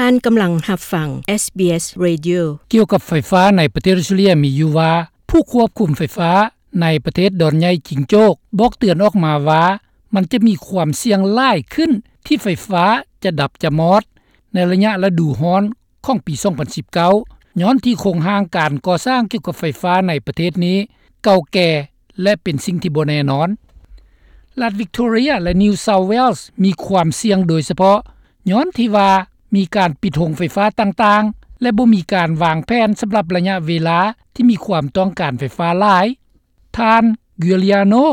ທ່ານກຳລັງຮັບຟັງ ເອສບີເອສ Radio. ກ່ຽວກັບໄຟຟ້າໃນປະເທດອອສເຕຣເລັຽມີຢູ່ວ່າ ຜູ້ຄວບຄຸມໄຟຟ້າໃນປະເທດດອນໃຫຍ່ຈິງໂຈກ ບອກເຕືອນອອກມາວ່າ ມັນຈະມີຄວາມສ່ຽງຫຼາຍຂຶ້ນທີ່ໄຟຟ້າຈະດັບຈະມອດ ໃນໄລຍະລະດູຮ້ອນຂອງປີສອງພັນສິບເກົ້າ ຍ້ອນທີ່ໂຄງຮ່າງການກໍ່ສ້າງກ່ຽວກັບໄຟຟ້າໃນປະເທດນີ້ເກົ່າແກ່ ແລະ ເປັນສິ່ງທີ່ບໍ່ແນ່ນອນ. ລັດ Victoria ແລະ New South Wales ມີຄວາມສ່ຽງໂດຍສະເພາະ ຍ້ອນທີ່ວ່າມີການປິດໂຮງໄຟຟ້າຕ່າງໆ ແລະ ບໍ່ມີການວາງແຜນສຳລັບໄລຍະເວລາທີ່ມີຄວາມຕ້ອງການໄຟຟ້າຫຼາຍ. ທ່ານ Giuliano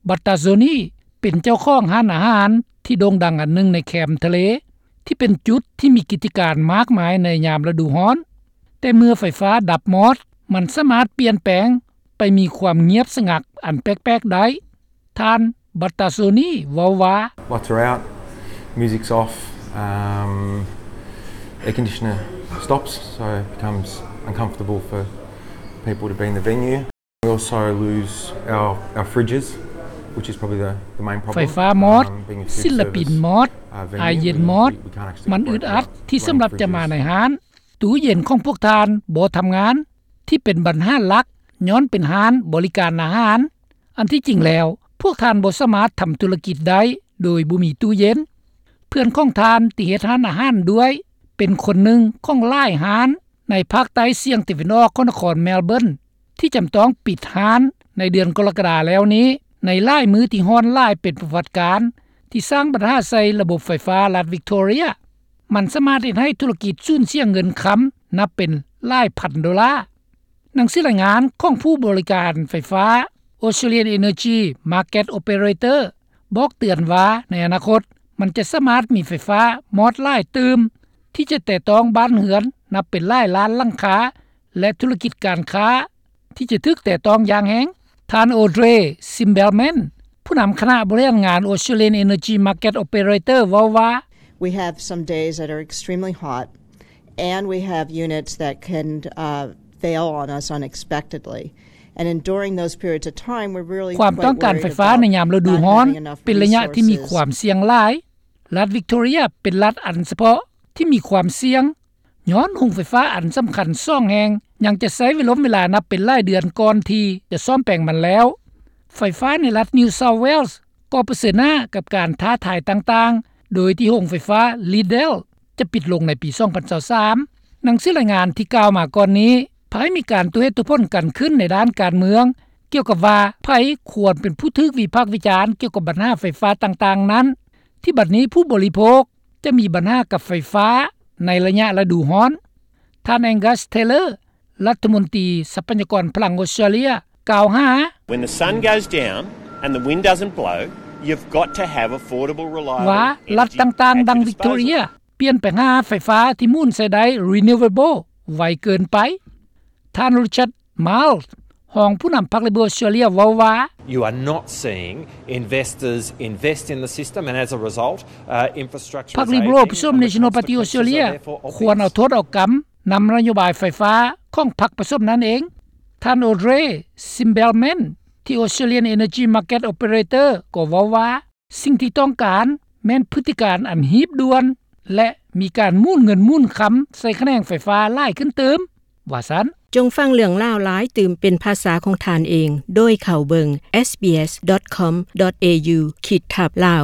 Battazzoni ເປັນເຈົ້າຂອງຮ້ານອາຫານທີ່ໂດ່ງດັງອັນໜຶ່ງໃນແຄມທະເລ ທີ່ເປັນຈຸດທີ່ມີກິດຈະການມາກມາຍໃນຍາມລະດູຮ້ອນ. ແຕ່ເມື່ອໄຟຟ້າດັບມອດ, ມັນສາມາດປ່ຽນແປງໄປມີຄວາມງຽບສະຫງັກອັນແປກໆໄດ້. ທ່ານ Battazzoni ເວົ້າວ່າ Lights are out, music's off, um, air conditioner stops, so it becomes uncomfortable for people to be in the venue. We also lose our, our fridges, which is probably the, the main problem. ໄຟຟ້າມອດ, ສິນລະປິນມອດ, ອາເຢັນມອດ, ມັນອຶດອັດທີ່ສຳລັບຈະມາໃນຮ້ານ. ຕູ້ເຢັນຂອງພວກທ່ານບໍ່ທຳງານ, ທີ່ເປັນບັນຫາຫຼັກຍ້ອນເປັນຮ້ານບໍລິການອາຫານ. ອັນທີ່ຈິງແລ້ວ, ພວກທ່ານບໍ່ສາມາດທຳທຸລະກິດໄດ້ໂດຍບໍ່ມີຕູ້ເຢັນ. ເພື່ອນຂອງທ່ານທີ່ເຮັດຮ້ານອາຫານດ້ວຍ ເປັນຄົນໜຶ່ງຂອງຫຼາຍຮ້ານໃນພາກໃຕ້ສ່ຽງຕາເວັນອອກຂອງນະຄອນ Melbourne ທີ່ຈຳຕ້ອງປິດຮ້ານໃນເດືອນກໍລະກະດາແລ້ວນີ້ ໃນຫຼາຍມື້ທີ່ຮ້ອນຫຼາຍເປັນປະຫວັດການ ທີ່ສ້າງບັນຫາໃສ່ລະບົບໄຟຟ້າລັດ Victoria. ມັນສາມາດເຮັດໃຫ້ທຸລະກິດສູນເສຍເງິນຄຳນັບເປັນຫຼາຍພັນໂດລາ. ໜັງສືລາຍງານຂອງຜູ້ບໍລິການໄຟຟ້າ Australian Energy Market Operator ບອກເຕືອນວ່າ ໃນອະນາຄົດ ມັນຈະສາມາດມີໄຟຟ້າມອດຫຼາຍຕື່ມ ທີ່ຈະແຕະຕ້ອງບ້ານເຮືອນນັບເປັນຫຼາຍລ້ານຫຼັງຄາ ແລະ ທຸລະກິດການຄ້າ ທີ່ຈະຖືກແຕະຕ້ອງຢ່າງແຮງ. ທ່ານ Audrey Simbelman ຜູ້ນຳຄະນະບໍລິຫານງານ Australian Energy Market Operator ເວົ້າວ່າ We have some days that are extremely hot, and we have units that can, uh, fail on us unexpectedly. And enduring those periods of time, we're really quite worried about not having enough resources. ຄວາມຕ້ອງການໄຟຟ້າໃນຍາມລະດູຮ້ອນເປັນໄລຍະທີ່ມີຄວາມສ່ຽງຫຼາຍ. ລັດ Victoria ເປັນລັດອັນສະເພາະທີ່ມີຄວາມສ່ຽງ ຍ້ອນໂຮງໄຟຟ້າອັນສຳຄັນສອງແຫ່ງ ຍັງຈະໃຊ້ເວລົມເວລານັບເປັນຫຼາຍເດືອນກ່ອນທີ່ຈະສ້ອມແປງມັນແລ້ວ. ໄຟຟ້າໃນລັດ New South Wales ກໍປະເຊີນໜ້າກັບການທ້າທາຍຕ່າງໆ ໂດຍທີ່ໂຮງໄຟຟ້າ Liddell ຈະປິດລົງໃນປີສອງພັນຊາວສາມ. ໜັງສືລາຍງານທີ່ກ່າວມາກ່ອນນີ້ ພາຍມີການຕົວເຫດຕົວຜົນກັນຂຶ້ນໃນດ້ານການເມືອງ ກ່ຽວກັບວ່າໃຜຄວນເປັນຜູ້ຖືກວິພາກວິຈານກ່ຽວກັບບັນຫາໄຟຟ້າຕ່າງໆນັ້ນ ທີ່ບັດນີ້ຜູ້ບໍລິໂພກຈະມີບັນຫາກັບໄຟຟ້າໃນໄລຍະລະດູຮ້ອນ. ທ່ານ Angus Taylor ລັດຖະມົນຕີຊັບພະຍາກອນພະລັງອອສເຕຣເລັຽ ກ່າວຫາ When the sun goes down and the wind doesn't blow, you've got to have affordable, reliable energy at your disposal. ວ່າລັດຕ່າງໆ ດັ່ງ Victoria ປ່ຽນໄປຫາໄຟຟ້າທີ່ໝູນໃຊ້ໄດ້ renewable ໄວເກີນໄປ. ທ່ານ Richard Marles ຮອງຜູ້ນຳພັກ Liberal ອອສເຕຣເລັຽ ເວົ້າວ່າ You are not seeing investors invest in the system, and as a result, uh, infrastructure is aging, and the consequences are therefore obvious. ພັກ Liberal ປະສົມ National Party ອອສເຕຣເລັຽ ຄວນເອົາໂທດເອົາກຳນຳນະໂຍບາຍໄຟຟ້າຂອງພັກປະສົມນັ້ນເອງ. ທ່ານ Audrey Simbelman ທີ່ Australian Energy Market Operator ກໍເວົ້າວ່າ ສິ່ງທີ່ຕ້ອງການແມ່ນພຶດຕິການອັນຮີບດ່ວນ ແລະ ມີການໝູນເງິນໝູນຄຳໃສ່ຂະແໜງໄຟຟ້າຫຼາຍຂຶ້ນຕື່ມ ວ່າຊັ້ນ. ຈົ່ງຟັງເລື່ອງລາວຫຼາຍຕື່ມເປັນພາສາຂອງທ່ານເອງ ໂດຍເຂົ້າເບິ່ງ SBS dot com dot au ຂີດທັບ Lao.